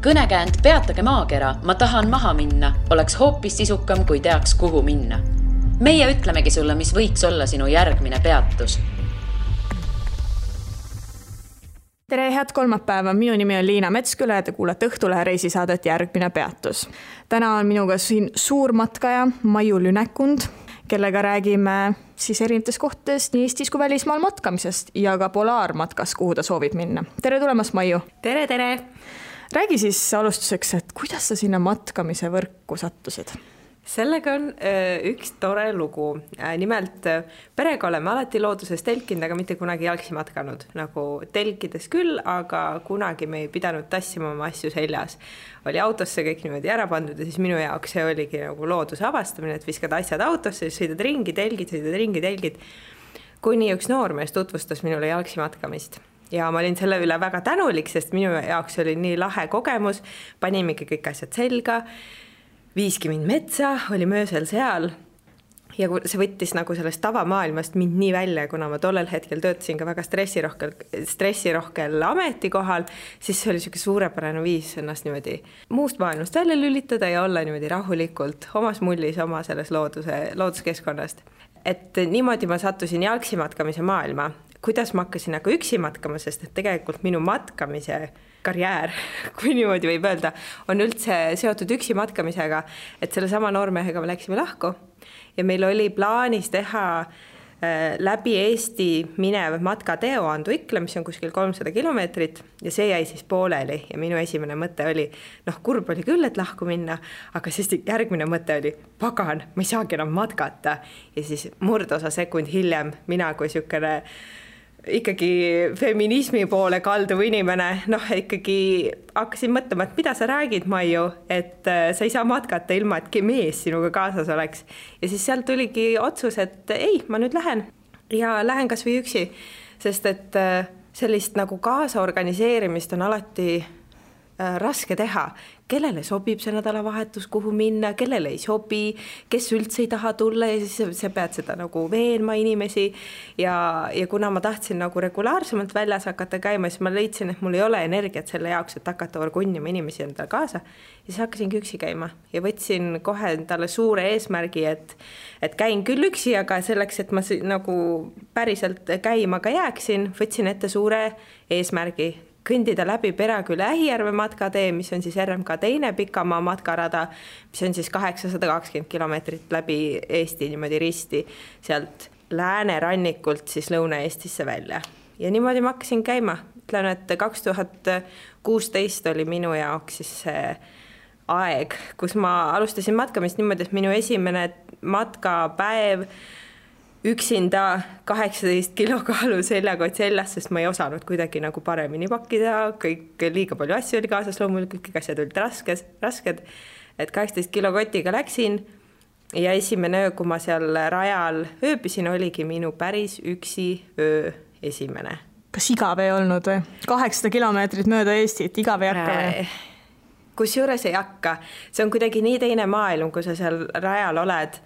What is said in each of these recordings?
Kõnekäänd Peatage maakera, ma tahan maha minna, oleks hoopis sisukam, kui teaks, kuhu minna. Meie ütlemegi sulle, mis võiks olla sinu järgmine peatus. Tere, head kolmapäeva. Minu nimi on Liina Metsküla ja te kuulete Õhtulehe reisisaadet Järgmine peatus. Täna on minuga siin suur matkaja Maiu Lünekund, kellega räägime siis erinevates kohtades nii Eestis kui välismaal matkamisest ja ka polaarmatkas, kuhu ta soovib minna. Tere tulemast, Maiu! Tere, tere! Räägi siis alustuseks, et kuidas sa sinna matkamise võrku sattusid? Sellega on üks tore lugu. Nimelt perega oleme alati looduses telkinud, aga mitte kunagi jalgsi matkanud. Nagu telkides küll, aga kunagi me ei pidanud tassima oma asju seljas. Oli autosse kõik niimoodi ära pandud ja siis minu jaoks see oligi nagu looduse avastamine, et viskad asjad autosse, siis sõidad ringi, telgid. Kuni üks noormees tutvustas minule jalgsi matkamist. Ja ma olin selle üle väga tänulik, sest minu jaoks oli nii lahe kogemus. Panimegi kõik asjad selga. Viiski mind metsa, oli möösel seal ja see võttis nagu sellest tavamaailmast mind nii välja, kuna ma tollel hetkel töötasin ka väga stressirohkel ametikohal, siis see oli selline suurepärane viis ennast niimoodi muust maailmast välja lülitada ja olla niimoodi rahulikult omas mullis, oma selles looduskeskkonnast. Et niimoodi ma sattusin jalgsi matkamise maailma. Kuidas ma hakkasin aga üksi matkama, sest et tegelikult minu matkamise karjäär, kui niimoodi võib öelda, on üldse seotud üksi matkamisega, et selle sama noormehega me läksime lahku ja meil oli plaanis teha läbi Eesti minev matkateo Anduikla, mis on kuskil 300 kilomeetrit ja see jäi siis pooleli ja minu esimene mõte oli, kurb oli küll, et lahku minna, aga siis järgmine mõte oli, pagan, ma ei saagi enam matkata ja siis murdosa sekund hiljem mina kui sükene ikkagi feminismi poole kalduv inimene, ikkagi hakkasin mõtlema, et mida sa räägid, Maiu, et sa ei saa matkata ilma, et mees sinuga kaasas oleks. Ja siis sealt tuligi otsus, et ei, ma nüüd lähen ja lähen kas või üksi, sest et sellist nagu kaasaorganiseerimist on alati raske teha. Kellele sobib see nädalavahetus, kuhu minna, kellele ei sobi, kes üldse ei taha tulla ja siis sa pead seda nagu veenma inimesi ja kuna ma tahtsin nagu regulaarsemalt väljas hakata käima, siis ma leidsin, et mul ei ole energiat selle jaoks, et hakata orgunnima inimesi endale kaasa ja siis hakkasingi üksi käima ja võtsin kohe endale suure eesmärgi, et käin küll üksi, aga selleks, et ma nagu päriselt käima ka jääksin, võtsin ette suure eesmärgi kõndida läbi Peraküle Ähijärve matkatee, mis on siis RMK teine pikamaa matkarada, mis on siis 820 kilomeetrit läbi Eesti niimoodi risti sealt läänerannikult siis Lõuna-Eestisse välja. Ja niimoodi ma hakkasin käima. Ütlen, et 2016 oli minu jaoks siis see aeg, kus ma alustasin matkamist niimoodi, et minu esimene matkapäev üksinda 18 kilokaalu seljakott seljas, sest ma ei osanud kuidagi nagu paremini pakkida, kõik liiga palju asju oli kaasas, loomulikult kõik asjad olid rasked, et 18 kilokotiga läksin ja esimene öö, kui ma seal rajal ööbisin, oligi minu päris üksi öö esimene. Kas igav ei olnud või? 800 kilomeetrit mööda Eestit, igav ei hakka või? Kusjuures ei hakka. See on kuidagi nii teine maailm, kui sa seal rajal oled,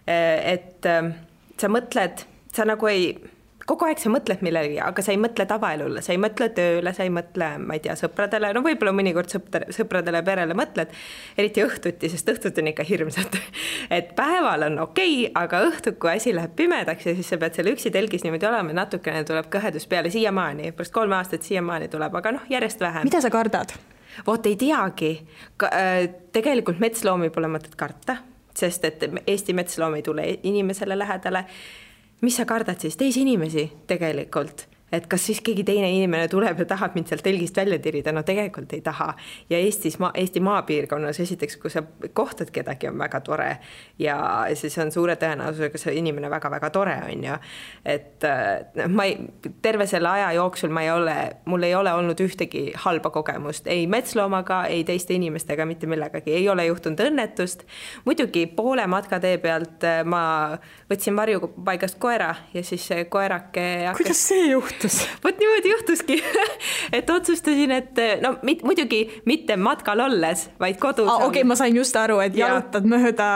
et sa mõtled, sa nagu kogu aeg sa mõtled millegi, aga sa ei mõtle tavaelule, sa ei mõtle tööle, sa ei mõtle, ma ei tea, sõpradele, võib-olla mõnikord sõpradele perele mõtled, eriti õhtuti, sest õhtut on ikka hirmsad. Et päeval on okei, aga õhtul, kui asi läheb pimedaks ja siis sa pead seal üksi telgis niimoodi olema, natukene tuleb kõhedus peale siiamaani, pärast 3 aastat siiamaani tuleb, aga järjest vähem. Mida sa kardad? Voot ei teagi. Tegelikult metsloomi pole mõtet karta, sest et Eesti metsloom ei tule inimesele lähedale. Mis sa kardad siis? Teisi inimesi tegelikult. Et kas siis keegi teine inimene tuleb ja tahab mind sealt telgist välja tirida? No tegelikult ei taha. Ja Eesti maapiirkonnas esiteks, kui sa kohtad kedagi, on väga tore ja siis on suure tõenäosusega see inimene väga-väga tore on ju. Et terve selle aja jooksul mul ei ole olnud ühtegi halba kogemust. Ei metsloomaga, ei teiste inimestega, mitte millegagi. Ei ole juhtunud õnnetust. Muidugi poole matkatee pealt ma võtsin varjupaigast koera ja siis see koerake Kuidas see juhtus? juhtus? Vot niimoodi juhtuski, et otsustasin, et no muidugi mitte matkal olles, vaid kodus. Okei, ma sain just aru, et jalutad mööda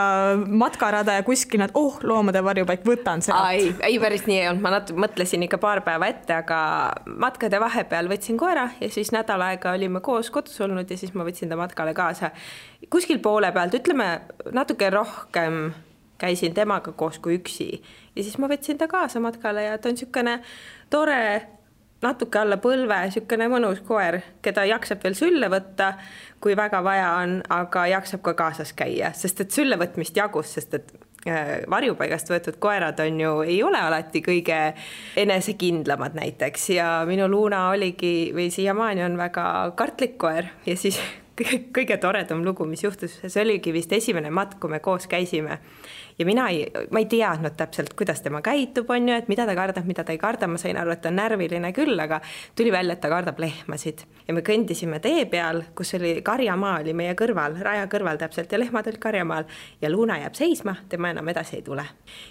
matkarada ja kuskil nad, loomade varjupaik, võtan sealt. Ei, päris nii ei olnud, ma mõtlesin ikka paar päeva ette, aga matkade vahepeal võtsin koera ja siis nädal aega olime koos kodus olnud ja siis ma võtsin ta matkale kaasa. Kuskil poole pealt, ütleme natuke rohkem käisin temaga koos kui üksi ja siis ma võtsin ta kaasa matkale ja ta on niisugune tore, natuke alla põlve, niisugune mõnus koer, keda jaksab veel sülle võtta, kui väga vaja on, aga jaksab ka kaasas käia, sest et sülle võtmist jagus, sest et varjupaigast võetud koerad on ju, ei ole alati kõige enesekindlamad näiteks ja minu Luna oligi või siiamaani on väga kartlik koer ja siis kõige toredam lugu, mis juhtus, see oligi vist esimene matk, kui me koos käisime ja ma ei teadnud täpselt, kuidas tema käitub, on ju, et mida ta kardab, mida ta ei karda, ma sain aru, et ta on närviline küll, aga tuli välja, et ta kardab lehmasid ja me kõndisime tee peal, kus oli karjamaa oli meie kõrval, raja kõrval täpselt ja lehmad olid karjamaal ja Luna jääb seisma, tema enam edasi ei tule.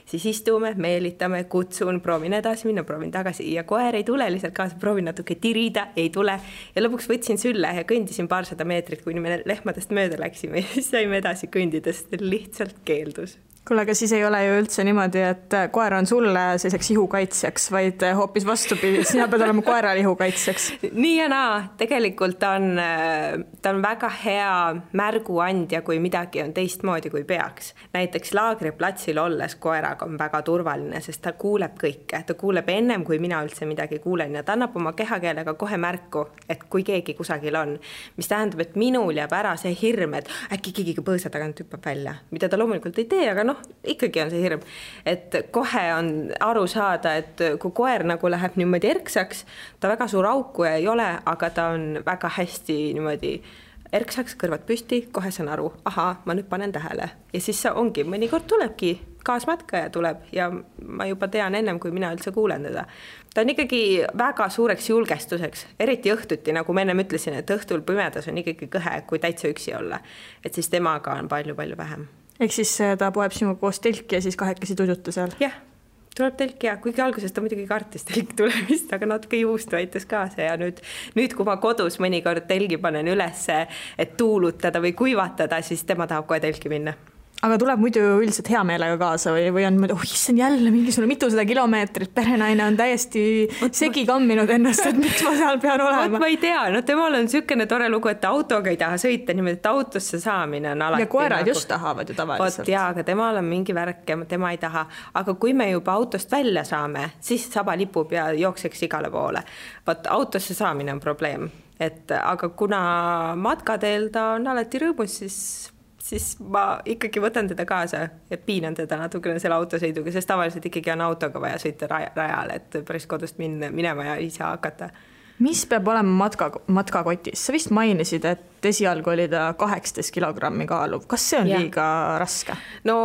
Siis istume, meelitame, kutsun, proovin edasi minna, proovin tagasi ja koer ei tule lihtsalt kaasa, proovin natuke tirida, ei tule ja lõpuks võtsin sülle ja kõndisin paarsada meetrit, kuni me lehmadest mööda läksime ja siis saime edasi kõndidest, lihtsalt keeldus. Kuule, aga siis ei ole ju üldse niimoodi, et koer on sulle selliseks ihukaitsjaks, vaid hoopis vastupidi, sina pead olema koeral ihukaitsjaks. Nii ja naa, tegelikult ta on väga hea märguandja, kui midagi on teistmoodi, kui peaks. Näiteks laagriplatsil olles koeraga on väga turvaline, sest ta kuuleb kõike. Ta kuuleb ennem, kui mina üldse midagi kuulen ja ta annab oma kehakeelega kohe märku, et kui keegi kusagil on. Mis tähendab, et minul jääb ära see hirm, et äkki keegi põõsa tagant hüppab välja, mida ta loomulikult ei tee, aga ikkagi on see hirm, et kohe on aru saada, et kui koer nagu läheb niimoodi erksaks, ta väga suur auku ei ole, aga ta on väga hästi niimoodi erksaks, kõrvad püsti, kohe saan aru, ma nüüd panen tähele ja siis ongi, mõnikord tulebki kaasmatkaja tuleb ja ma juba tean ennem, kui mina üldse kuulen teda. Ta on ikkagi väga suureks julgestuseks, eriti õhtuti, nagu ma ennem ütlesin, et õhtul pimedas on ikkagi kõhe, kui täitsa üksi olla, et siis temaga on palju-palju vähem. Ehk siis ta poeb sinuga koos telki ja siis kahekesi tuduta seal? Jah, tuleb telk ja kuigi alguses ta muidugi kartis telk tulemist, aga natuke juustu aitas kaasa ja nüüd, kui ma kodus mõnikord telgi panen üles, et tuulutada või kuivatada, siis tema tahab kohe telki minna. Aga tuleb muidu üldiselt hea meelega kaasa või on mõelda, issand jälle mingisugune mitusada kilomeetrit, perenaine on täiesti segi kamminud ennast, et miks ma seal pean olema. Ma ei tea, temal on niisugune tore lugu, et autoga ei taha sõita, niimoodi, et autosse saamine on alati. Ja koerad just tahavad ju tavaliselt. Aga temal on mingi värk ja tema ei taha. Aga kui me juba autost välja saame, siis saba lipub ja jookseks igale poole. Autosse saamine on probleem. Aga kuna matkateel ta on alati rõõmus, siis ma ikkagi võtan teda kaasa ja piinan teda natukene selle autosõiduga, sest tavaliselt ikkagi on autoga vaja sõita rajale, et päris kodust minema ja ise hakata. Mis peab olema matkakotis? Sa vist mainisid, et esialgu oli ta 18 kilogrammi kaaluv. Kas see on liiga raske? No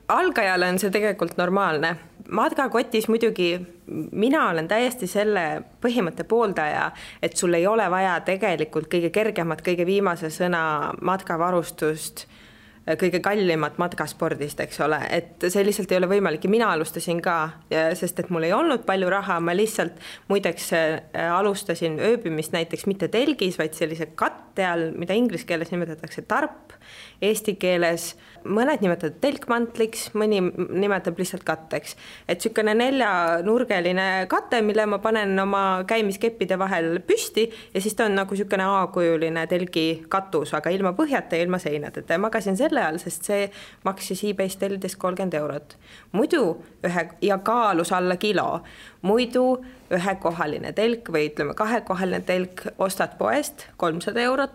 algajale on see tegelikult normaalne. Matkakotis muidugi mina olen täiesti selle põhimõtte pooldaja, et sul ei ole vaja tegelikult kõige kergemat, kõige viimase sõna matkavarustust, kõige kallimat matkaspordist, eks ole, et see lihtsalt ei ole võimalik ja mina alustasin ka, sest et mul ei olnud palju raha, ma lihtsalt muideks alustasin ööbimist näiteks mitte telgis, vaid sellise katte all, mida inglise keeles nimetatakse tarp, eesti keeles mõned nimetavad telkmantliks, mõni nimetab lihtsalt katteks. Et niisugune 4-nurgeline kate, mille ma panen oma käimiskeppide vahel püsti ja siis ta on nagu niisugune A-kujuline telgi katus, aga ilma põhjata ja ilma seinadeta. Ja magasin selle all, sest see maksis eBay's tellides 30 €. Muidu ja kaalus alla kilo. Muidu ühekohaline telk või ütleme kahekohaline telk ostad poest 300 €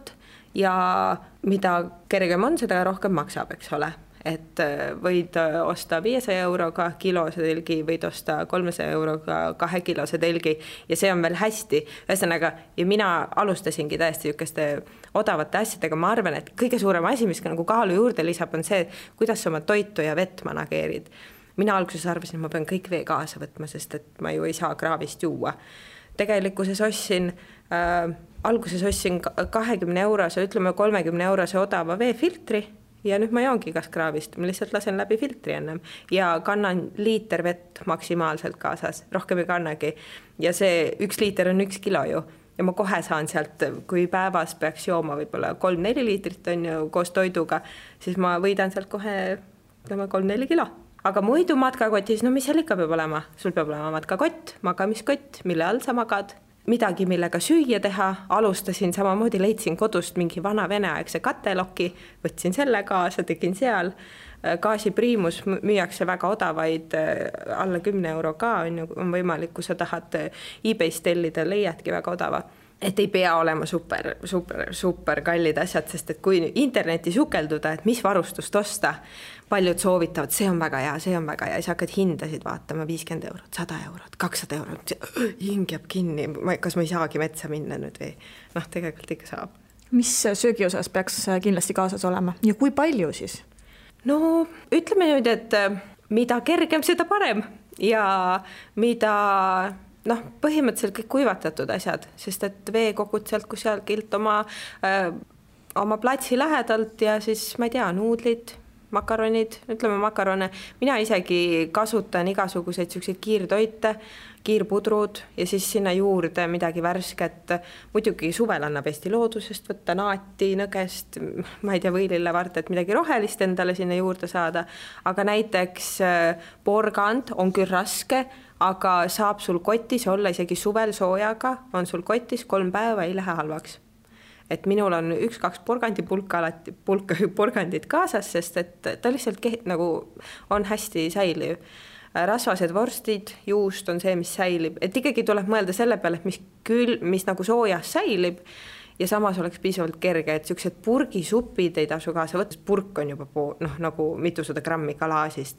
ja mida kergem on, seda rohkem maksab, eks ole. Et võid osta 500 € kilose telgi, võid osta 300 € 2 kilose telgi ja see on veel hästi. Ühesõnaga, ja mina alustasingi täiesti niisuguste odavate asjadega. Ma arvan, et kõige suurem asi, mis nagu kaalu juurde lisab, on see, kuidas sa oma toitu ja vett manageerid. Mina alguses arvasin, et ma pean kõik vee kaasa võtma, sest et ma ju ei saa kraavist juua. Tegelikkuses alguses ostsin 20 €, ütleme 30 € odava veefiltri ja nüüd ma joongi kaskraavist, ma lihtsalt lasen läbi filtri ennem ja kannan liiter vett maksimaalselt kaasas, rohkem ei kannagi. Ja see 1 liiter on 1 kilo ju ja ma kohe saan sealt, kui päevas peaks jooma võib-olla 3-4 liitrit on ju koos toiduga, siis ma võidan sealt kohe 3-4 kilo. Aga muidu matkakotis, no mis seal ikka peab olema? Sul peab olema matkakott, magamiskott, mille all sa magad. Midagi, millega süüa teha, alustasin samamoodi, leidsin kodust mingi vana veneaegse kateloki, võtsin selle kaasa, tegin seal. Gaasipriimus müüakse väga odavaid, alla 10 euro ka on võimalik, kui sa tahad eBay's tellida, leiadki väga odava. Et ei pea olema super kallid asjad, sest et kui interneti sukelduda, et mis varustust osta, paljud soovitavad, see on väga hea, ja siis hakkad hindasid vaatama 50 eurot, 100 eurot, 200 eurot, hing jääb kinni, kas ma ei saagi metsa minna nüüd või? Noh, tegelikult ikka saab. Mis söögi osas peaks kindlasti kaasas olema ja kui palju siis? No ütleme nüüd, et mida kergem, seda parem ja mida... Noh, põhimõtteliselt kõik kuivatatud asjad, sest et veekogud sealt kusagilt oma platsi lähedalt ja siis, ma ei tea, nuudlid, makaronid, ütleme makarone. Mina isegi kasutan igasuguseid selliseid kiirtoite, kiirpudrud ja siis sinna juurde midagi värsket. Muidugi suvel annab Eesti loodusest võtta naati, nõgest, ma ei tea, võilillevart, et midagi rohelist endale sinna juurde saada. Aga näiteks porgand on küll raske, aga saab sul kotis olla isegi suvel soojaga, on sul kotis 3 päeva, ei lähe halvaks. Et minul on 1-2 porgandit kaasas, sest et ta lihtsalt nagu on hästi säiliv. Rasvased vorstid, juust on see, mis säilib. Et ikkagi tuleb mõelda selle peale, et mis nagu soojas säilib ja samas oleks piisavalt kerge, et sellised purgisupid ei tasu kaasa võtta. Purk on juba nagu mitusada grammi kalaasist.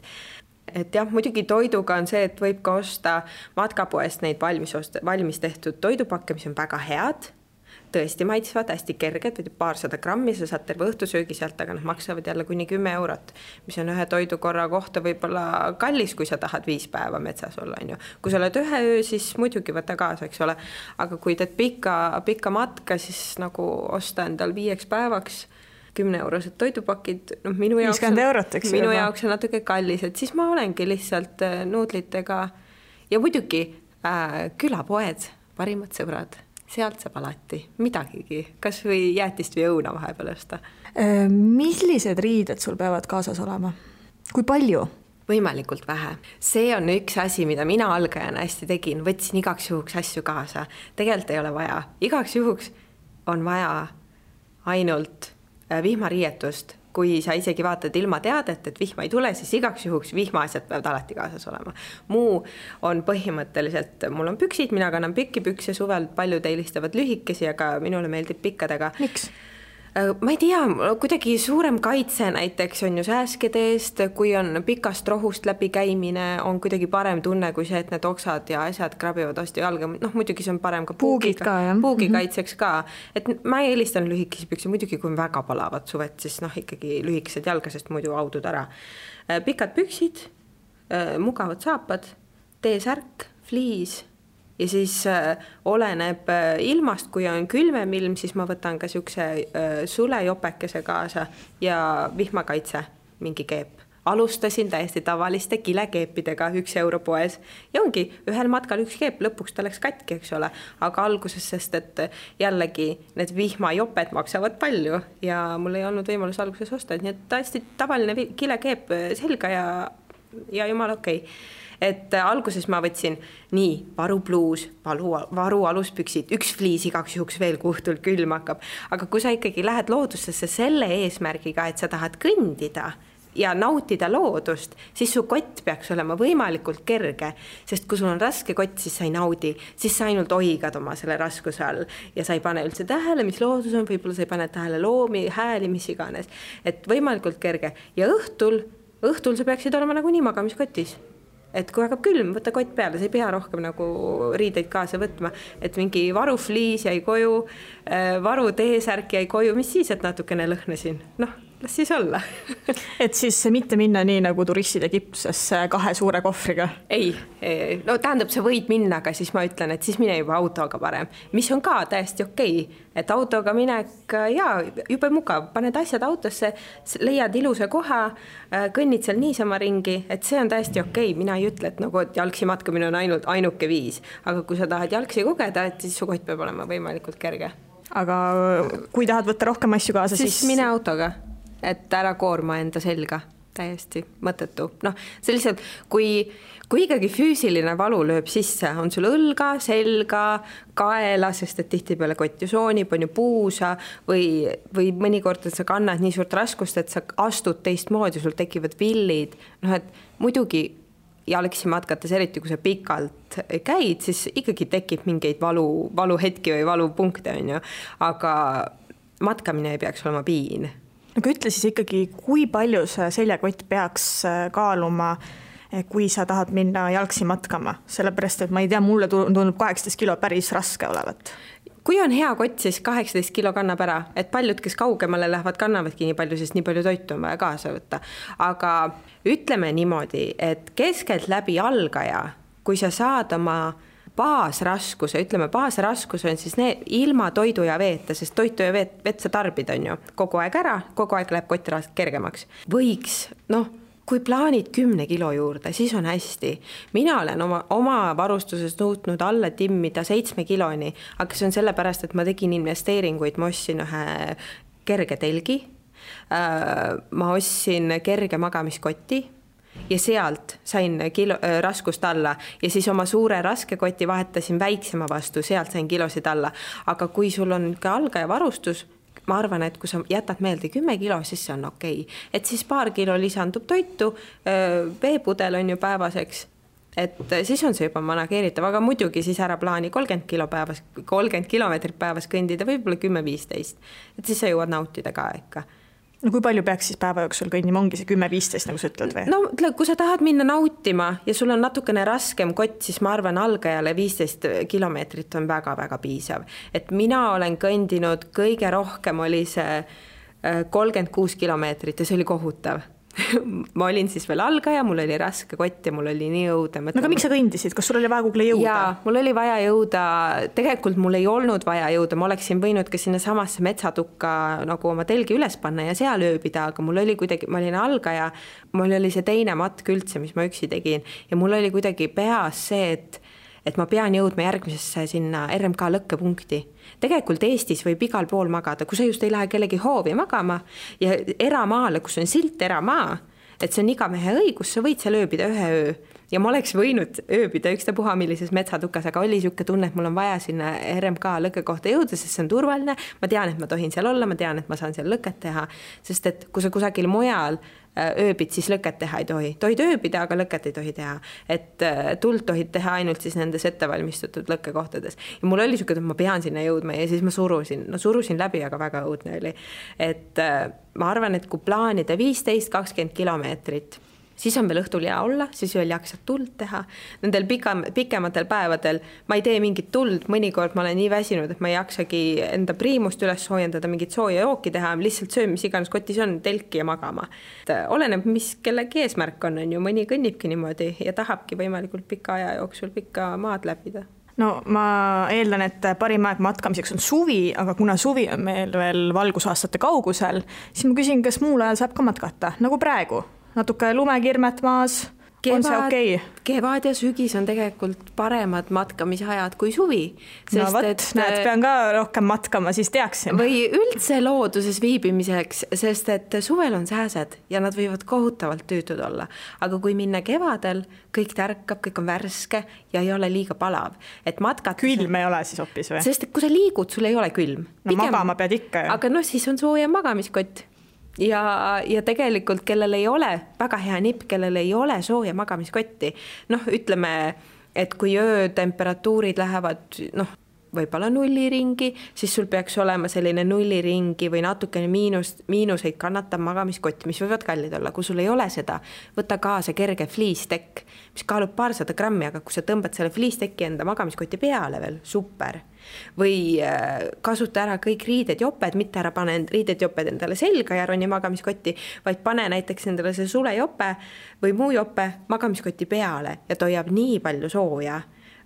Et jah, muidugi toiduga on see, et võib ka osta matkapoest neid valmis tehtud toidupakke, mis on väga head, tõesti maitsvad, hästi kerged, või paarsada grammi, sa saad terve õhtusöögi sealt, aga nad maksavad jälle kuni 10 eurot, mis on ühe toidukorra kohta võib-olla kallis, kui sa tahad 5 päeva metsas olla. Kui sa oled ühe öö, siis muidugi võta kaasa, eks ole, aga kui teed pikka matka, siis nagu osta endal 5 päevaks 10-eurosed toidupakid, minu jaoks on natuke kallis, et siis ma olengi lihtsalt nuudlitega ja muidugi külapoed, parimad sõbrad, sealt saab alati midagigi, kas või jäätist või õuna vahepeal osta. Millised riided sul peavad kaasas olema? Kui palju? Võimalikult vähe. See on üks asi, mida mina algajana hästi tegin, võtsin igaks juhuks asju kaasa. Tegelikult ei ole vaja. Igaks juhuks on vaja ainult vihmariietust, kui sa isegi vaatad ilma teadet, et vihma ei tule, siis igaks juhuks vihmaasjad peavad alati kaasas olema. Muu on põhimõtteliselt, mul on püksid, mina kannan pikki pükse suvel, paljud eelistavad lühikesi, aga minule meeldib pikkadega. Miks? Ma ei tea, kuidagi suurem kaitse näiteks on ju sääskede eest, kui on pikast rohust läbi käimine, on kuidagi parem tunne kui see, et need oksad ja asjad krabivad hästi jalga. Muidugi see on parem ka puugi kaitseks ka. Et ma eelistan lühikesi pükse, muidugi kui on väga palavad suvet, siis ikkagi lühikesed jalga, sest muidu audud ära. Pikad püksid, mugavad saapad, T-särk, fliis. Ja siis oleneb ilmast, kui on külmem ilm, siis ma võtan ka siukse sulejopekese kaasa ja vihmakaitse, mingi keep. Alustasin täiesti tavaliste kilekeepidega 1 euro poes ja ongi ühel matkal 1 keep, lõpuks ta läks katki, eks ole, aga alguses, sest et jällegi need vihmajoped maksavad palju ja mul ei olnud võimalus alguses osta, nii et täiesti tavaline kilekeep selga ja jumal okei. Et alguses ma võtsin nii varupluus, varu aluspüksid, 1 fliis igaks juhuks veel, kui õhtul külm hakkab. Aga kui sa ikkagi lähed loodusesse selle eesmärgiga, et sa tahad kõndida ja nautida loodust, siis su kott peaks olema võimalikult kerge, sest kui sul on raske kott, siis sa ei naudi, siis sa ainult oigad oma selle raskuse all ja sa ei pane üldse tähele, mis loodus on, võib-olla sa ei pane tähele loomi, hääli, mis iganes, et võimalikult kerge ja õhtul sa peaksid olema nagu nii magamiskotis. Et kui hakkab külm, võtta kott peale, sa ei pea rohkem nagu riideid kaasa võtma, et mingi varufliis jäi koju, varu T-särk jäi koju, mis siis, et natukene lõhnasin. las siis olla. Et siis mitte minna nii nagu turistid Egiptusesse 2 suure kohvriga? Ei, no tähendab, sa võid minna, aga siis ma ütlen, et siis mine juba autoga parem, mis on ka täiesti okei. Et autoga minek ja juba mugav, paned asjad autosse, leiad ilusa koha, kõnnid seal niisama ringi, et see on täiesti okei. Mina ei ütle, et nagu et jalgsi matkamine on ainuke viis, aga kui sa tahad jalgsi kogeda, et siis su kott peab olema võimalikult kerge. Aga kui tahad võtta rohkem asju kaasa, siis mine autoga, et ära koorma enda selga, täiesti mõttetu. Noh, see lihtsalt, kui ikkagi füüsiline valu lööb sisse, on sul õlga, selga, kaela, sest et tihti peale kott ju soonib, on ju puusa või mõnikord, et sa kannad nii suurt raskust, et sa astud teistmoodi, sul tekivad villid. Noh, et muidugi jalgsi matkates, eriti kui sa pikalt käid, siis ikkagi tekib mingeid valuhetki või valupunkte, on ju. Aga matkamine ei peaks olema piin. Aga ütle siis ikkagi, kui palju see seljakott peaks kaaluma, kui sa tahad minna jalgsi matkama? Sellepärast, et ma ei tea, mulle tundub 18 kilo päris raske olevat. Kui on hea kott, siis 18 kilo kannab ära, et paljud, kes kaugemale lähevad, kannavadki nii palju, sest nii palju toitu on vaja kaasa võtta. Aga ütleme niimoodi, et keskelt läbi algaja, kui sa saad oma baasraskuse, ütleme baasraskus on siis ilma toidu ja veeta, sest toitu ja vett sa tarbid, on ju, kogu aeg ära, kogu aeg läheb kott kergemaks. Võiks, kui plaanid 10 kilo juurde, siis on hästi. Mina olen oma varustuses nõutnud alla timmida 7 kiloni, aga see on sellepärast, et ma tegin investeeringuid, ma ostsin ühe kerge telgi, ma ostsin kerge magamiskotti ja sealt sain raskust alla ja siis oma suure raske koti vahetasin väiksema vastu, sealt sain kilosid alla. Aga kui sul on ka algaja varustus, ma arvan, et kui sa jätad meelde 10 kilo, siis see on okei. Et siis paar kilo lisandub toitu, veepudel on ju päevaseks, et siis on see juba manageeritav, aga muidugi siis ära plaani 30 kilomeetrit päevas kõndida, võib-olla 10-15, et siis sa jõuad nautida ka ikka. No kui palju peaks siis päeva jooksul kõnnima, ongi see 10-15, nagu sa ütled või? No kui sa tahad minna nautima ja sul on natukene raskem kott, siis ma arvan, algajale 15 kilomeetrit on väga-väga piisav. Et mina olen kõndinud, kõige rohkem oli see 36 kilomeetrit ja see oli kohutav. Ma olin siis veel algaja, mul oli raske kott ja mul oli nii õudne. No aga miks sa kõndisid? Kas sul oli vaja kuhugi jõuda? Jaa, mul oli vaja jõuda. Tegelikult mul ei olnud vaja jõuda. Ma oleksin võinud ka sinna samasse metsatukka nagu oma telgi üles panna ja seal ööbida, aga mul oli kuidagi, ma olin algaja, mul oli see teine matk üldse, mis ma üksi tegin ja mul oli kuidagi peas see, et ma pean jõudma järgmisesse sinna RMK lõkkepunkti. Tegelikult Eestis võib igal pool magada, kui sa just ei lähe kellegi hoovi magama ja eramaale, kus on silt eramaa, et see on iga mehe õigus, sa võid seal ööbida 1 öö. Ja ma oleks võinud ööbida ükstapuha millises metsatukas, aga oli siuke tunne, et mul on vaja sinna RMK lõkke kohta jõuda, sest see on turvaline. Ma tean, et ma tohin seal olla, ma tean, et ma saan seal lõket teha, sest et kui sa kusagil mujal ööbid, siis lõket teha ei tohi. Tohid ööbida, aga lõket ei tohi teha. Et tuld tohid teha ainult siis nendes ettevalmistatud lõkkekohtades. Ja mul oli siuke, et ma pean sinna jõudma ja siis ma surusin läbi, aga väga õudne oli. Et ma arvan, et kui plaanida 15-20 kilomeetrit, siis on veel õhtul hea olla, siis veel jaksad tuld teha. Nendel pikematel päevadel ma ei tee mingit tuld, mõnikord ma olen nii väsinud, et ma ei jaksagi enda priimust üles soojendada, mingit sooja jooki teha, lihtsalt söön, mis iganes kotis on, telki ja magama. Oleneb, mis kellegi eesmärk on ju, mõni kõnnibki niimoodi ja tahabki võimalikult pika aja jooksul pikka maad läbida. No ma eeldan, et parim aeg matkamiseks on suvi, aga kuna suvi on meil veel valgusaastate kaugusel, siis ma küsin, kas muul ajal saab ka matkata, nagu praegu? Natuke lumekirmet maas, on see okei? Kevad ja sügis on tegelikult paremad matkamisajad kui suvi. No võt, näed, pean ka rohkem matkama, siis teaksin. Või üldse looduses viibimiseks, sest et suvel on sääsed ja nad võivad kohutavalt tüütud olla. Aga kui minna kevadel, kõik tärkab, kõik on värske ja ei ole liiga palav. Et matkata... Külm ei ole siis hoopis või? Sest kui sa liigud, sul ei ole külm. No magama pead ikka. Aga siis on sooja magamiskott. Ja tegelikult, kellel ei ole väga hea nipp, kellel ei ole sooja magamiskotti, ütleme, et kui öötemperatuurid lähevad võib-olla nulliringi, siis sul peaks olema selline nulliringi või natukene miinuseid kannatav magamiskott, mis võivad kallid olla. Kui sul ei ole seda, võta kaasa kerge fliistekk, mis kaalub 200 grammi, aga kui sa tõmbad selle fliistekki enda magamiskoti peale veel, super. Või kasuta ära kõik riided-joped, mitte ära pane riided-joped endale selga ja roni magamiskotti, vaid pane näiteks endale see sulejope või muu jope magamiskoti peale ja toiab nii palju sooja,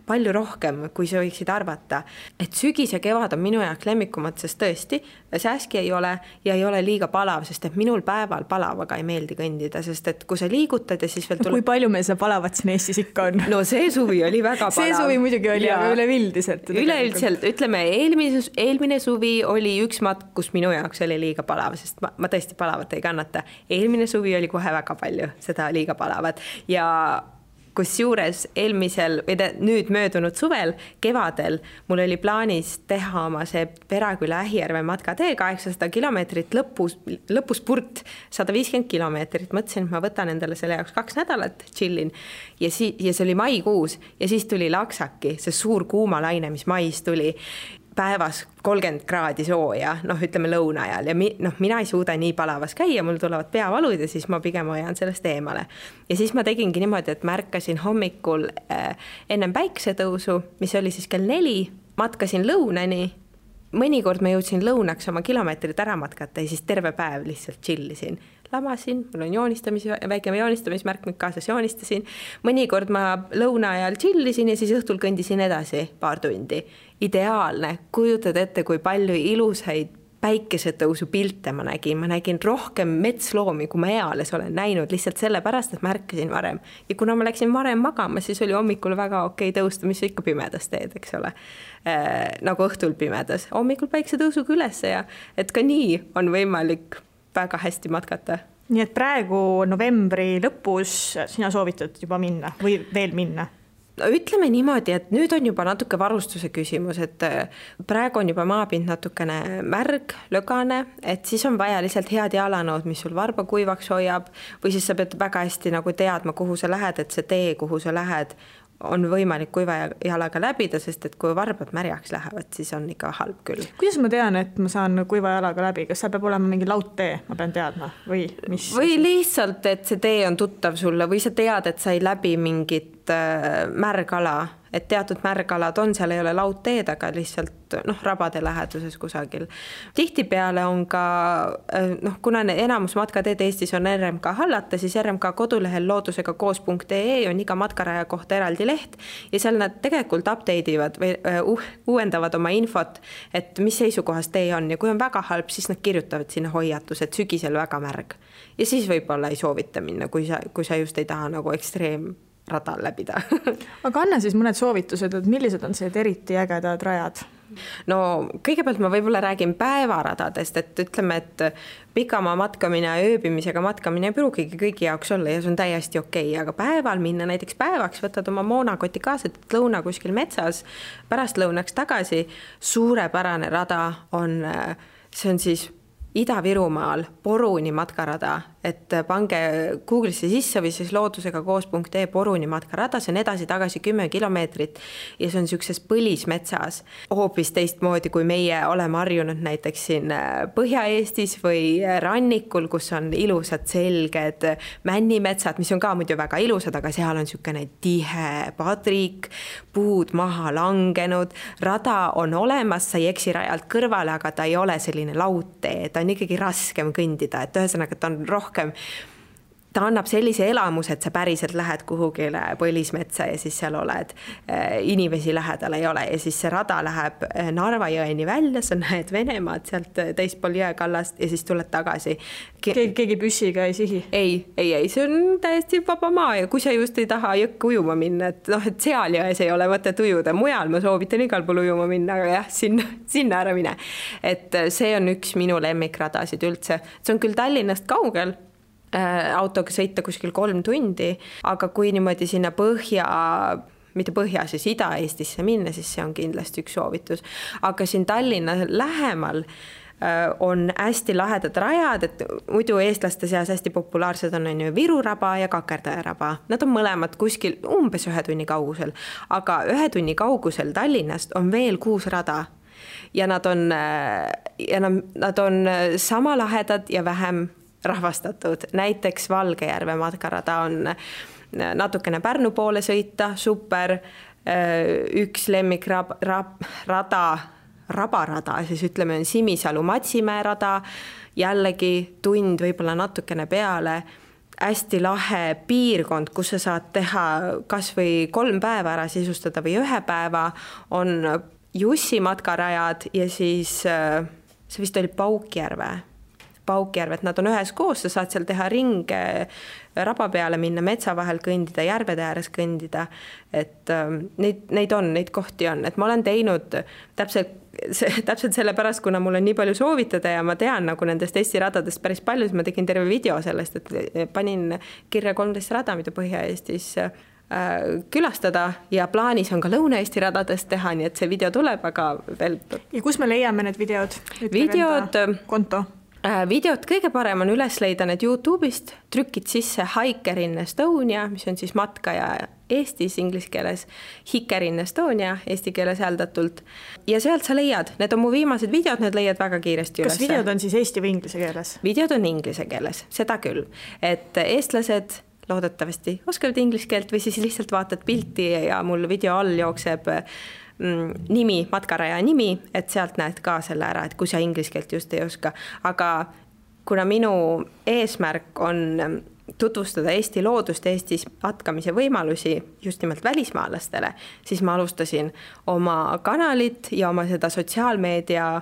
palju rohkem, kui sa võiksid arvata. Et sügis ja kevad on minu jaoks lemmikumad, sest tõesti, sääski ei ole ja ei ole liiga palav, sest et minul päeval palavaga ei meeldi kõndida, sest et kui sa liigutad ja siis veel tuleb... Kui palju meil seda palavat siin Eestis ikka on? No see suvi oli väga palav. See suvi muidugi oli, aga üleüldiselt. Üleüldiselt, ütleme, eelmine suvi oli üks matk, kus minu jaoks oli liiga palav, sest ma tõesti palavat ei kannata. Eelmine suvi oli kohe väga palju seda liiga palavat ja kus juures eelmisel või nüüd möödunud suvel, kevadel, mul oli plaanis teha oma see Peraküla Ähijärve matkatee 800 kilomeetrit lõpuspurt 150 kilomeetrit. Mõtlesin, et ma võtan endale selle jaoks 2 nädalat, chillin ja see oli maikuus ja siis tuli laksaki, see suur kuumalaine, mis mais tuli. Päevas 30 kraadi sooja, ütleme lõuna ajal ja mina ei suuda nii palavas käia, mul tulevad peavalud ja siis ma pigem hoian sellest eemale. Ja siis ma tegingi niimoodi, et märkasin hommikul ennem päiksetõusu, mis oli siis kell 4, matkasin lõunani, mõnikord ma jõudsin lõunaks oma kilomeetrit ära matkata ja siis terve päev lihtsalt chillisin. Lamasin, mul on väike joonistamismärkmik kaasas, joonistasin. Mõnikord ma lõuna ajal chillisin ja siis õhtul kõndisin edasi paar tundi. Ideaalne, kujutad ette, kui palju ilusaid päikesetõusu pilte ma nägin rohkem metsloomi, kui ma eales olen näinud, lihtsalt sellepärast, et märkasin varem. Ja kuna ma läksin varem magama, siis oli hommikul väga okei tõusta, mis ikka pimedas teed, eks ole. Nagu õhtul pimedas. Hommikul päikesetõusuga üles ja et ka nii on võimalik väga hästi matkata. Nii et praegu novembri lõpus sina soovitad juba minna või veel minna? Ütleme niimoodi, et nüüd on juba natuke varustuse küsimus, et praegu on juba maapind natukene märg, lögane, et siis on vaja lihtsalt head jalanood, mis sul varba kuivaks hoiab või siis sa pead väga hästi nagu teadma, kuhu sa lähed, et see tee, kuhu sa lähed, on võimalik kuiva jalaga läbida, sest et kui varbad märjaks lähevad, siis on ikka halb küll. Kuidas ma tean, et ma saan kuiva jalaga läbi? Kas seal peab olema mingi laudtee, ma pean teadma? Või lihtsalt, et see tee on tuttav sulle või sa tead, et sa ei läbi mingit märgala, et teatud märgalad on, seal ei ole laudteed, aga lihtsalt rabade läheduses kusagil. Tihtipeale on ka, kuna enamus matkateed Eestis on RMK hallata, siis RMK kodulehel loodusega koos.ee on iga matkaraja kohta eraldi leht ja seal nad tegelikult updateivad või uuendavad oma infot, et mis seisukohas tee on ja kui on väga halb, siis nad kirjutavad sinna hoiatus, et sügisel väga märg ja siis võib-olla ei soovita minna, kui sa just ei taha nagu radal läbida. Aga anna siis mõned soovitused, et millised on see eriti ägedad rajad? No kõigepealt ma võib-olla räägin päevaradadest, et ütleme, et pikamaa matkamine ja ööbimisega matkamine ei pruugigi kõigi jaoks olla ja see on täiesti okei, aga päeval minna näiteks päevaks, võtad oma moonakoti kaasa, et lõuna kuskil metsas, pärast lõunaks tagasi, suurepärane rada on, see on siis Ida-Virumaal Poruni matkarada, et pange Google'isse sisse või siis loodusega koos.ee Poruni matkarada, see on edasi-tagasi 10 kilomeetrit ja see on niisuguses põlismetsas hoopis teistmoodi, kui meie oleme harjunud näiteks siin Põhja-Eestis või rannikul, kus on ilusad selged männimetsad, mis on ka muidu väga ilusad, aga seal on niisugune tihe padrik, puud maha langenud, rada on olemas, sa ei eksi rajalt kõrvale, aga ta ei ole selline laudtee, ta on ikkagi raskem kõndida, et ühesõnaga ta on rohkem, ta annab sellise elamuse, et sa päriselt lähed kuhugile põlismetsa ja siis seal oled, inimesi lähedal ei ole ja siis see rada läheb Narva jõeni välja, sa näed Venemaad sealt teispool jõekallast ja siis tuled tagasi. Keegi püssiga ei sihi? Ei, see on täiesti vaba maa ja kui sa just ei taha jõkke ujuma minna, et seal jões ei ole mõtet ujuda, mujal ma soovitan igal pool ujuma minna, aga jah, sinna ära mine. Et see on üks minu lemmikradasid üldse, see on küll Tallinnast kaugel, autoga sõita kuskil 3 tundi, aga kui niimoodi sinna mitte põhja, siis Ida-Eestisse minna, siis see on kindlasti üks soovitus. Aga siin Tallinna lähemal on hästi lahedad rajad, et muidu eestlaste seas hästi populaarsed on ju Viru raba ja Kakerdaja raba. Nad on mõlemad kuskil umbes 1 tunni kaugusel, aga 1 tunni kaugusel Tallinnast on veel 6 rada ja nad on sama lahedad ja vähem rahvastatud. Näiteks Valgejärve matkarada on natukene Pärnu poole sõita, super, üks lemmik rabarada, siis ütleme on Simisalu-Matsimäe rada, jällegi tund võib-olla natukene peale, hästi lahe piirkond, kus sa saad teha kas või 3 päeva ära sisustada või 1 päeva, on Jussi matkarajad ja siis see vist oli Paukjärvet, nad on ühes koos, sa saad seal teha ringe, raba peale minna, metsa vahel kõndida, järvede ääres kõndida, et neid kohti on, et ma olen teinud täpselt selle pärast, kuna mul on nii palju soovitada ja ma tean nagu nendest Eesti radadest päris palju, siis ma tegin terve video sellest, et panin kirja 13 rada, mida Põhja-Eestis külastada ja plaanis on ka Lõuna-Eesti radadest teha, nii et see video tuleb, aga veel... Ja kus me leiame need videod? Konto? Videot kõige parem on üles leida need YouTube'ist, trükid sisse Hiker in Estonia, mis on siis matkaja Eestis inglise keeles, Hiker in Estonia eesti keeles hääldatult ja sealt sa leiad, need on mu viimased videod, need leiad väga kiiresti üles. Kas videod on siis eesti või inglise keeles? Videod on inglise keeles, seda küll, et eestlased loodetavasti oskavad inglise keelt või siis lihtsalt vaatad pilti ja mul video all jookseb nimi, matkaraja nimi, et sealt näed ka selle ära, et kui sa inglise keelt just ei oska. Aga kuna minu eesmärk on tutvustada Eesti loodust, Eestis matkamise võimalusi just nimelt välismaalastele, siis ma alustasin oma kanalit ja oma seda sotsiaalmeedia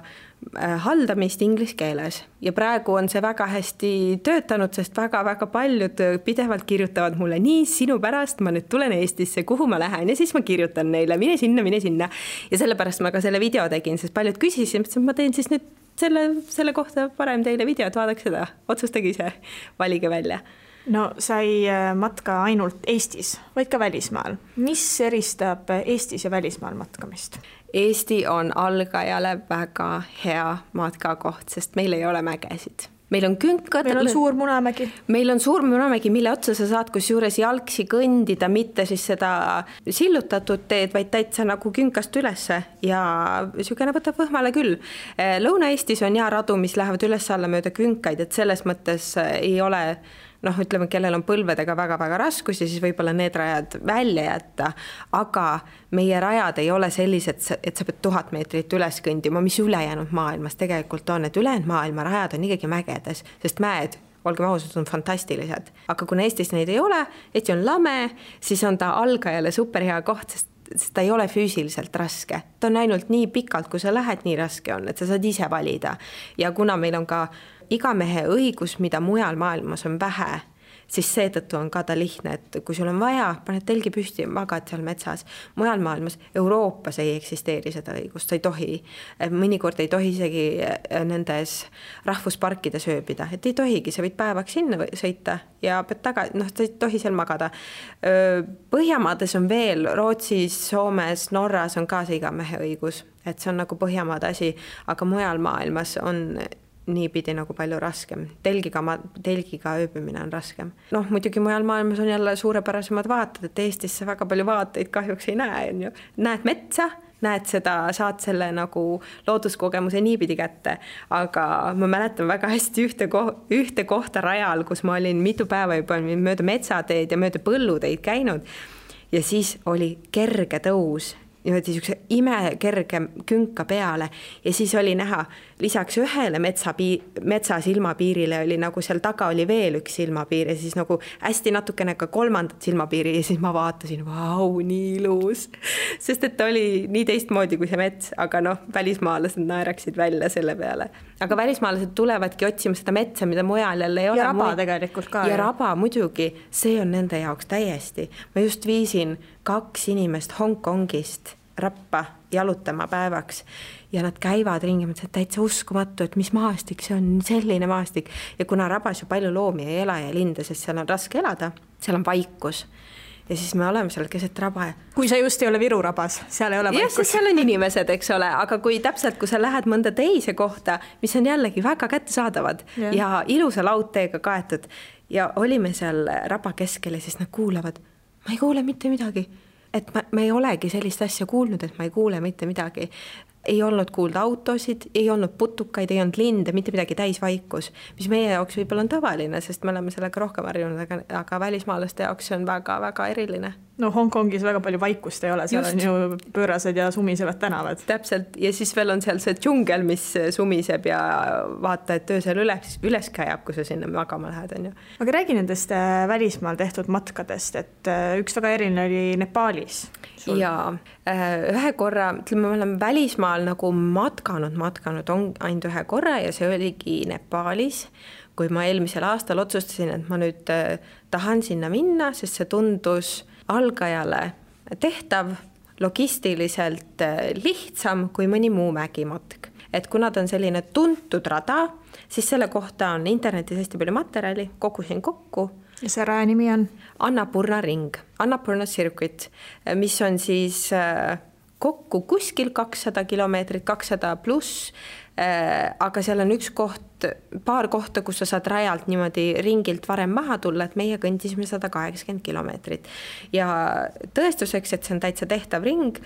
haldamist inglise keeles ja praegu on see väga hästi töötanud, sest väga-väga paljud pidevalt kirjutavad mulle nii sinu pärast, ma nüüd tulen Eestisse, kuhu ma lähen ja siis ma kirjutan neile, mine sinna ja sellepärast ma ka selle video tegin, sest paljud küsisid, et ma teen siis nüüd selle kohta parem teile videot, vaadake seda, otsustage ise, valige välja. No sa ei matka ainult Eestis, vaid ka välismaal. Mis eristab Eestis ja välismaal matkamist? Eesti on algajale väga hea matkakoht, sest meil ei ole mägesid. Meil on künkad. Meil on suur Munamägi. Meil on suur Munamägi, mille otsa sa saad kus juures jalgsi kõndida, mitte siis seda sillutatud teed, vaid täitsa nagu künkast ülesse ja sügene võtab võhmale küll. Lõuna-Eestis on radu, mis lähevad üles alla mööda künkaid, et selles mõttes ei ole ütleme, kellel on põlvedega väga-väga raskus ja siis võib-olla need rajad välja jätta, aga meie rajad ei ole sellised, et sa pead 1000 meetrit üles kõndima, mis ülejäänud maailmas tegelikult on, et ülejäänud maailma rajad on ikkagi mägedes, sest mäed, olgem ausad, on fantastilised. Aga kuna Eestis neid ei ole, Eesti on lame, siis on ta algajale superhea koht, sest ta ei ole füüsiliselt raske. Ta on ainult nii pikalt, kui sa lähed, nii raske on, et sa saad ise valida. Ja kuna meil on ka iga mehe õigus, mida mujal maailmas on vähe, siis seetõttu on ka ta lihtne, et kui sul on vaja, paned telgi püsti ja magad seal metsas. Mujal maailmas, Euroopas ei eksisteeri seda õigust, sa ei tohi. Mõnikord ei tohi isegi nendes rahvusparkides ööbida, et ei tohigi, sa võid päevaks sinna sõita ja pead sa ei tohi seal magada. Põhjamaades on veel, Rootsis, Soomes, Norras on ka see iga mehe õigus, et see on nagu Põhjamaade asi, aga mujal maailmas on niipidi nagu palju raskem. Telgiga ööbimine on raskem. Muidugi mujal maailmas on jälle suurepärasemad vaated, et Eestisse väga palju vaateid kahjuks ei näe. Näed metsa, näed seda, saad selle nagu looduskogemuse niipidi kätte, aga ma mäletan väga hästi ühte kohta rajal, kus ma olin mitu päeva juba mööda metsateed ja mööda põlluteid käinud ja siis oli kerge tõus niisuguse imekerge künka peale ja siis oli näha lisaks ühele metsa silmapiirile oli nagu seal taga oli veel üks silmapiir ja siis nagu hästi natukene ka kolmandat silmapiiri ja siis ma vaatasin, vau, nii ilus, sest et ta oli nii teistmoodi kui see mets, aga välismaalased naeraksid välja selle peale. Aga välismaalased tulevadki otsima seda metsa, mida mujal jälle ei ole. Ja raba tegelikult ka. Ja raba muidugi, see on nende jaoks täiesti. Ma just viisin 2 inimest Hongkongist Rappa jalutama päevaks ja nad käivad ringi, mõtlesid täitsa uskumatu, et mis maastik, see on selline maastik ja kuna rabas ju palju loomi ei ela ja linde, sest seal on raske elada, seal on vaikus ja siis me oleme seal keset raba. Kui sa just ei ole Viru rabas, seal ei ole vaikus. Jah, seal on inimesed, eks ole, aga kui täpselt, kui sa lähed mõnda teise kohta, mis on jällegi väga kättesaadavad ja ilusa laudteega kaetud ja olime seal raba keskel ja siis nad kuulavad, ma ei kuule mitte midagi. Et ma ei olegi sellist asja kuulnud, et ma ei kuule mitte midagi. Ei olnud kuulda autosid, ei olnud putukaid, ei olnud linde, mitte midagi täisvaikus, mis meie jaoks võib-olla on tavaline, sest me oleme sellega rohkem harjunud, aga välismaalaste jaoks on väga-väga eriline. No Hongkongis väga palju vaikust ei ole, seal just. On ju pöörased ja sumisevad tänavad. Täpselt, ja siis veel on seal see džungel, mis sumiseb ja vaata, et öösel üles käjab, kui sa sinna magama lähed. On ju. Aga räägi nendest välismaal tehtud matkadest, et üks väga eriline oli Nepaalis. Ja ühe korra, ütleme, me oleme välismaal nagu matkanud on ainult ühe korra ja see oligi Nepaalis, kui ma eelmisel aastal otsustasin, et ma nüüd tahan sinna minna, sest see tundus algajale tehtav, logistiliselt lihtsam kui mõni muu mägimatk. Et kuna ta on selline tuntud rada, siis selle kohta on internetis hästi palju materjali, kogusin kokku. Ja see raja nimi on? Annapurna ring, Annapurna circuit, mis on siis kokku kuskil 200 kilomeetrit, 200 pluss, aga seal on üks koht, paar kohta, kus sa saad rajalt niimoodi ringilt varem maha tulla, et meie kõndisime 180 kilomeetrit. Ja tõestuseks, et see on täitsa tehtav ring,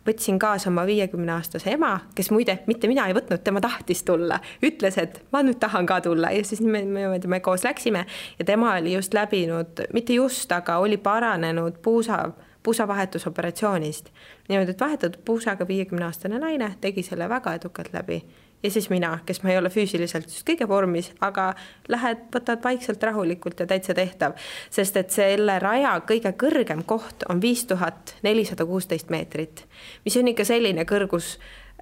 võtsin kaasa oma 50-aastase ema, kes muide, mitte mina ei võtnud, tema tahtis tulla, ütles, et ma nüüd tahan ka tulla ja siis me koos läksime ja tema oli just läbinud, mitte just, aga oli paranenud puusavahetusoperatsioonist. Niimoodi, et vahetatud puusaga 50-aastane naine tegi selle väga edukalt läbi. Ja siis mina, kes ma ei ole füüsiliselt just kõige vormis, aga võtad vaikselt rahulikult ja täitsa tehtav. Sest et selle raja kõige kõrgem koht on 5416 meetrit, mis on ikka selline kõrgus,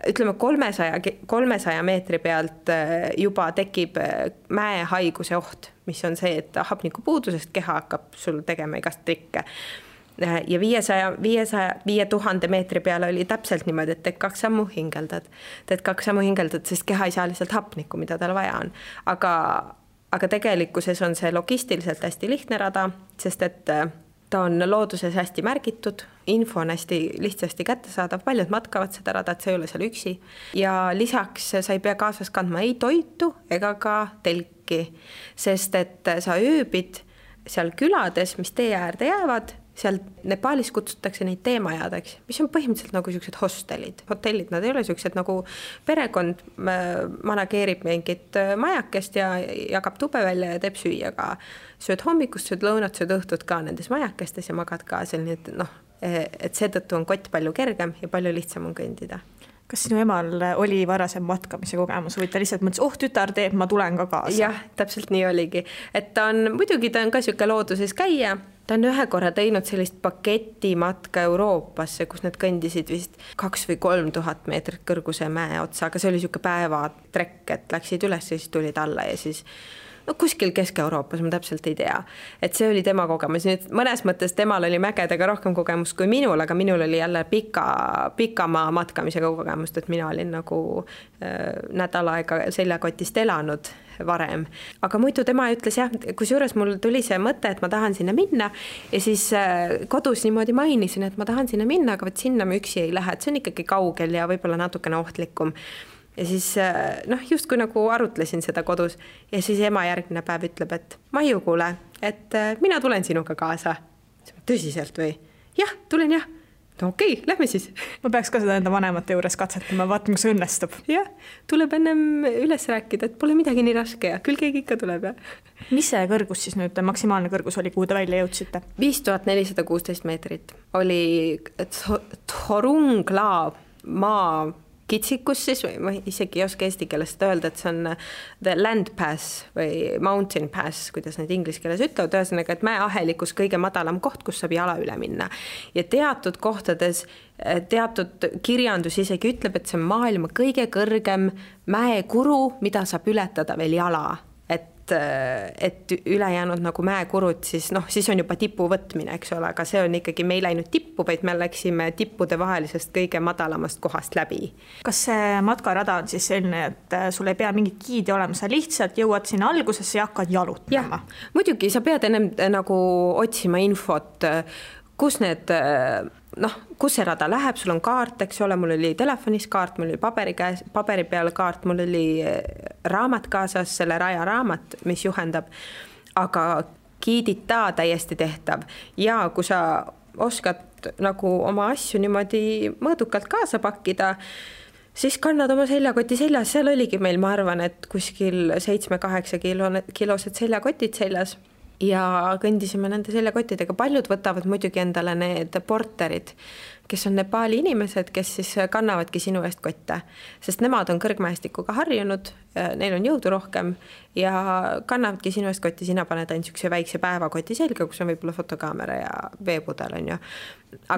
ütleme 300 meetri pealt juba tekib mäehaiguse oht, mis on see, et hapnikupuudusest keha hakkab sul tegema igast trikke. Ja 5000 meetri peale oli täpselt niimoodi, et teed 2 sammu hingeldad, sest keha ei saa lihtsalt hapnikku, mida tal vaja on. Aga tegelikkuses on see logistiliselt hästi lihtne rada, sest et ta on looduses hästi märgitud, info on hästi lihtsasti kättesaadav, paljud matkavad seda rada, et see ei ole seal üksi. Ja lisaks sa ei pea kaasas kandma ei toitu ega ka telki, sest et sa ööbid seal külades, mis tee äärde jäävad, seal Nepaalis kutsutakse neid teemajadeks, mis on põhimõtteliselt nagu sellised hotellid, nad ei ole sellised nagu perekond manageerib mingit majakest ja jagab tube välja ja teeb süüa ka. Sööd hommikust, sööd lõunat, sööd õhtut ka nendes majakestes ja magad ka seal, nii et seetõttu on kott palju kergem ja palju lihtsam on kõndida. Kas sinu emal oli varasem matkamise kogemus või ta lihtsalt mõtles, tütar teeb, ma tulen ka kaasa? Jah, täpselt nii oligi. Et ta on ka siuke looduses käia. Ta on ühe korra teinud sellist paketimatka Euroopasse, kus need kõndisid vist 2 või 3000 meetrit kõrguse mäe otsa, aga see oli siuke päevatrekk, et läksid üles ja siis tulid alla ja siis kuskil Kesk-Euroopas, ma täpselt ei tea. Et see oli tema kogemus. Nüüd mõnes mõttes temal oli mägedega rohkem kogemus kui minul, aga minul oli jälle pikamaa matkamisega kogemust, et mina olin nagu nädal aega seljakotist elanud varem. Aga muidu tema ütles jah, kusjuures mul tuli see mõte, et ma tahan sinna minna ja siis kodus niimoodi mainisin, et ma tahan sinna minna, aga sinna ma üksi ei lähe, et see on ikkagi kaugel ja võib-olla natukene ohtlikum. Ja siis just kui nagu arutlesin seda kodus ja siis ema järgmine päev ütleb, et Maiu kuule, et mina tulen sinuga kaasa. Tõsiselt või? Jah, tulen jah. No okei, lähme siis. Ma peaks ka seda enda vanemate juures katsetama, vaatama, kui see õnnestub. Jah, tuleb ennem üles rääkida, et pole midagi nii raske ja küll keegi ikka tuleb. Ja. Mis see kõrgus siis nüüd, maksimaalne kõrgus oli, kuhu te välja jõudsite? 5416 meetrit oli Thorungla maa kitsikus siis, või ma isegi ei oska eesti keelest öelda, et see on the land pass või mountain pass, kuidas need inglise keeles ütlevad, ühesõnaga, et mäeahelikus kõige madalam koht, kus saab jala üle minna. Ja teatud kohtades, teatud kirjandus isegi ütleb, et see on maailma kõige kõrgem mäekuru, mida saab ületada veel jala. Et et ülejäänud nagu mäekurud, siis siis on juba tipu võtmine, eks ole, aga see on ikkagi, me ei läinud tippu, vaid me läksime tippude vahelisest kõige madalamast kohast läbi. Kas see matkarada on siis selline, et sul ei pea mingit giidi olema, sa lihtsalt jõuad sinna algusesse ja hakkad jalutama? Muidugi, sa pead ennem nagu otsima infot, kus need, kus see rada läheb, sul on kaart, eks ole, mul oli telefonis kaart, mul oli paberi peal kaart, mul oli raamat kaasas, selle raja raamat, mis juhendab, aga giidita täiesti tehtav ja kui sa oskad nagu oma asju niimoodi mõõdukalt kaasa pakkida, siis kannad oma seljakoti seljas, seal oligi meil, ma arvan, et kuskil 7-8 kilosed seljakotid seljas ja kõndisime nende seljakottidega. Paljud võtavad muidugi endale need porterid, kes on Nepali inimesed, kes siis kannavadki sinu eest kotte, sest nemad on kõrgmäestikuga harjunud, neil on jõudu rohkem ja kannavadki sinu eest kotti, sina paned ainult niisuguse väikse päevakoti selga, kus on võib-olla fotokaamera ja veepudel, on ju.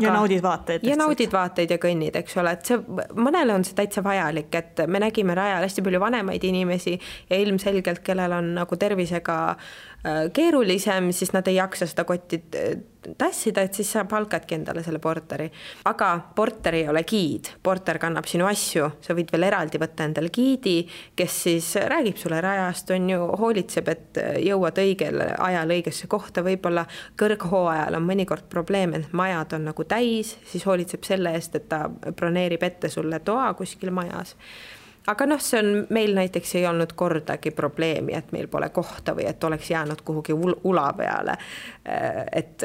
Ja naudid vaateid. Ja naudid vaateid ja kõnnid, eks ole, et see, mõnele on see täitsa vajalik, et me nägime rajal hästi palju vanemaid inimesi ja ilmselgelt, kellel on nagu tervisega keerulisem, siis nad ei jaksa seda kotti tassida, et siis sa palkadki endale selle porteri. Aga porter ei ole giid, porter kannab sinu asju, sa võid veel eraldi võtta endale giidi, kes siis räägib sulle rajast, on ju, hoolitseb, et jõuad õigel ajal õigesse kohta, võib-olla kõrghooajal on mõnikord probleem, et majad on nagu täis, siis hoolitseb selle eest, et ta broneerib ette sulle toa kuskil majas. Aga see on, meil näiteks ei olnud kordagi probleemi, et meil pole kohta või et oleks jäänud kuhugi ula peale. Et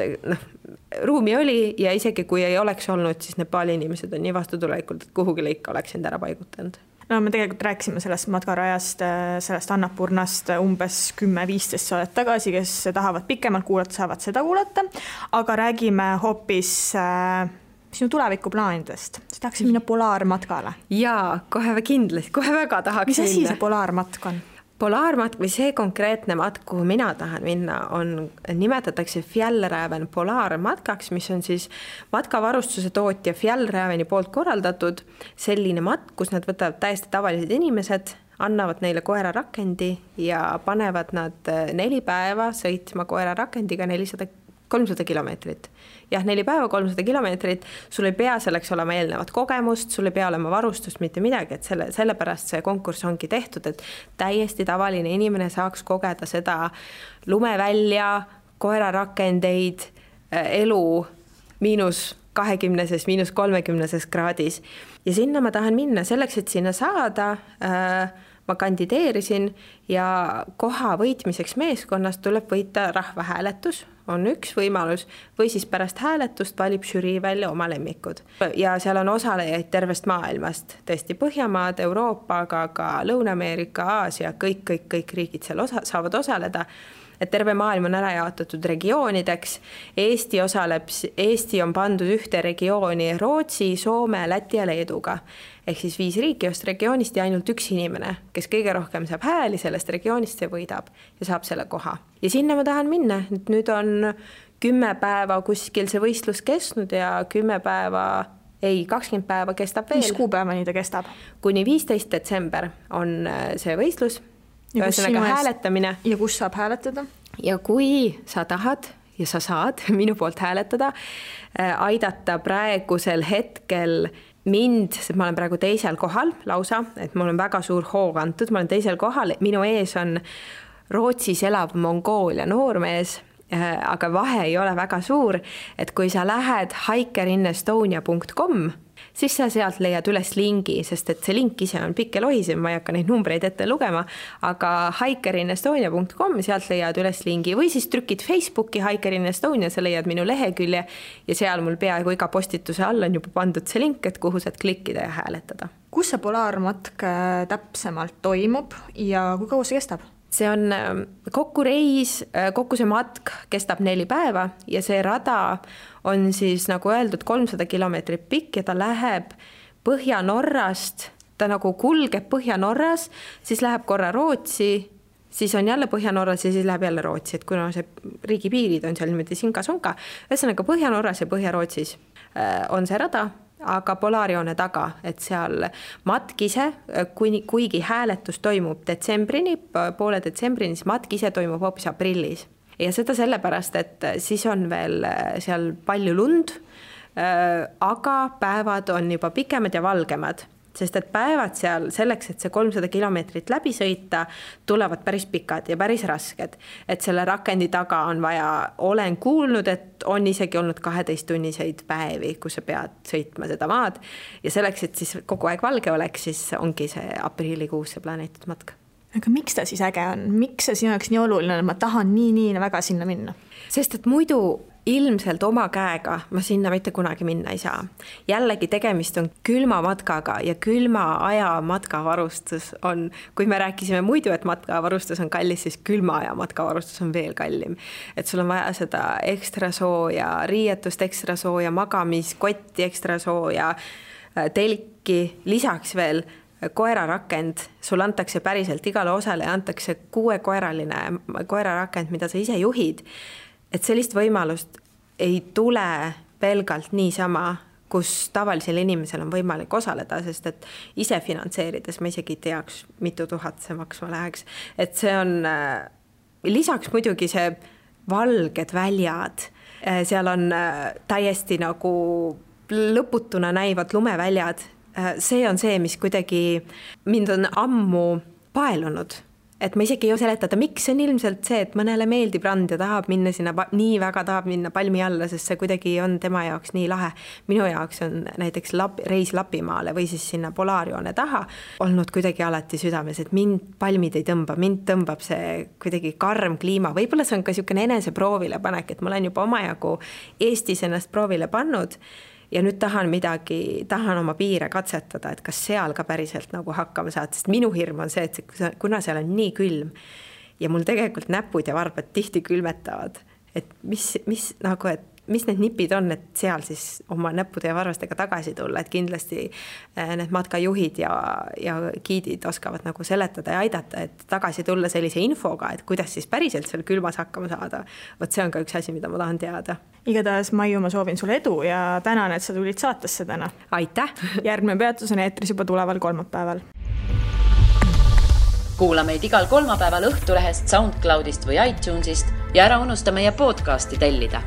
ruumi oli ja isegi kui ei oleks olnud, siis Nepali inimesed on nii vastutulelikult, et kuhugi lõika oleks end ära paigutanud. Me tegelikult rääkisime sellest matkarajast, sellest Annapurnast umbes 10-15 saadet tagasi, kes tahavad pikemalt kuulata, saavad seda kuulata, aga räägime hoopis sinu tulevikuplaanidest. Sa tahaksid minna polaarmatkale? Jaa, kohe kindlasti, kohe väga tahaks minna. Mis asi see polaarmatk on? Polaarmatk või see konkreetne matk, kuhu mina tahan minna, nimetatakse Fjällräven polaarmatkaks, mis on siis matkavarustuse tootja Fjällräveni poolt korraldatud selline matk, kus nad võtavad täiesti tavalised inimesed, annavad neile koerarakendi ja panevad nad 4 päeva sõitma koerarakendiga 300 kilomeetrit. Jah, 4 päeva, 300 kilomeetrit, sul ei pea selleks olema eelnevat kogemust, sul ei pea olema varustust, mitte midagi, et sellepärast see konkurss ongi tehtud, et täiesti tavaline inimene saaks kogeda seda lumevälja, koerarakendeid, elu -20, -30 kraadis. Ja sinna ma tahan minna selleks, et sinna saada. Ma kandideerisin ja koha võitmiseks meeskonnast tuleb võita rahvahääletus, on üks võimalus, või siis pärast hääletust valib žürii välja oma lemmikud. Ja seal on osalejaid tervest maailmast, tõesti Põhjamaad, Euroopa, aga ka Lõuna-Ameerika, Aasia, kõik riigid seal saavad osaleda. Et terve maailm on ära jaotatud regioonideks. Eesti on pandud ühte regiooni Rootsi, Soome, Läti ja Leeduga. Ehk siis 5 riiki just regioonist ja ainult üks inimene, kes kõige rohkem saab hääli sellest regioonist, see võidab ja saab selle koha. Ja sinna ma tahan minna. Nüüd on 10 päeva kuskil see võistlus kestnud ja 20 päeva kestab veel. Mis kuupäevani ta kestab? Kuni 15 detsember on see võistlus. Ühesõnaga hääletamine. Ja kus saab hääletada? Ja kui sa tahad ja sa saad minu poolt hääletada, aidata praegusel hetkel mind, sest ma olen praegu teisel kohal lausa, et mul on väga suur hoog antud, ma olen teisel kohal, minu ees on Rootsis elav Mongoolia noormees, aga vahe ei ole väga suur, et kui sa lähed hikerinnestonia.com, siis sa sealt leiad üles lingi, sest et see link ise on pikk ja lohisev, ma ei hakka neid numbreid ette lugema, aga hikerinnestonia.com, sealt leiad üles lingi või siis trükid Facebooki Hikerinnestonia, sa leiad minu lehekülje ja seal mul peaaegu iga postituse all on juba pandud see link, et kuhu saad klikkida ja hääletada. Kus see polaarmatk täpsemalt toimub ja kui kaua see kestab? See on kokku reis, kokku see matk kestab 4 päeva ja see rada on siis nagu öeldud 300 kilomeetrit pikk ja ta läheb Põhja-Norrast, ta nagu kulgeb Põhja-Norras, siis läheb korra Rootsi, siis on jälle Põhja-Norras ja siis läheb jälle Rootsi, et kuna see riigipiirid on seal niimoodi sinka-sonka, ühesõnaga Põhja-Norras ja Põhja-Rootsis on see rada aga Polaarjoone taga, et seal matk ise, kuigi hääletus toimub poole detsembrini, siis matk ise toimub hoopis aprillis. Ja seda sellepärast, et siis on veel seal palju lund, aga päevad on juba pikemad ja valgemad, sest et päevad seal selleks, et see 300 kilomeetrit läbi sõita, tulevad päris pikad ja päris rasked. Et selle rakendi taga on vaja, olen kuulnud, et on isegi olnud 12-tunniseid päevi, kus sa pead sõitma seda maad. Ja selleks, et siis kogu aeg valge oleks, siis ongi see aprillikuus see planeetud matka. Aga miks ta siis äge on? Miks see sinu jaoks nii oluline, et ma tahan nii väga sinna minna? Sest et muidu ilmselt oma käega ma sinna mitte kunagi minna ei saa. Jällegi tegemist on külma matkaga ja külma aja matkavarustus on, kui me rääkisime muidu, et matkavarustus on kallis, siis külma aja matkavarustus on veel kallim. Et sul on vaja seda ekstra sooja, riietust ekstra sooja, magamiskotti ekstra sooja, telki, lisaks veel koerarakend, sul antakse päriselt igale osale ja antakse 6-koeraline koerarakend, mida sa ise juhid. Et sellist võimalust ei tule pelgalt niisama, kus tavalisel inimesel on võimalik osaleda, sest et ise finantseerides ma isegi teaks, mitu tuhat see maksma läheks. Et see on lisaks muidugi see valged väljad, seal on täiesti nagu lõputuna näivad lumeväljad. See on see, mis kuidagi mind on ammu paelunud. Et ma isegi ei seletada, miks see on ilmselt see, et mõnele meeldib rand ja tahab minna sinna, nii väga tahab minna palmi alla, sest see kuidagi on tema jaoks nii lahe. Minu jaoks on näiteks reis Lapimaale või siis sinna Polaarjoone taha olnud kuidagi alati südames, et mind palmid ei tõmba, mind tõmbab see kuidagi karm kliima. Võib-olla see on ka niisugune enese proovile panek, et ma olen juba omajagu Eestis ennast proovile pannud ja nüüd tahan oma piire katsetada, et kas seal ka päriselt nagu hakkama saad, sest minu hirm on see, et kuna seal on nii külm ja mul tegelikult näpud ja varbad tihti külmetavad, et mis need nipid on, et seal siis oma näppude ja varvastega tagasi tulla, et kindlasti need matkajuhid ja giidid oskavad nagu seletada ja aidata, et tagasi tulla sellise infoga, et kuidas siis päriselt seal külmas hakkama saada. Vot see on ka üks asi, mida ma tahan teada. Igatahes, Maiu, ma soovin sulle edu ja tänan, et sa tulid saatesse täna. Aitäh! Järgmine peatus on eetris juba tuleval kolmapäeval. Kuula meid igal kolmapäeval Õhtulehest, SoundCloudist või iTunesist ja ära unusta meie podcasti tellida.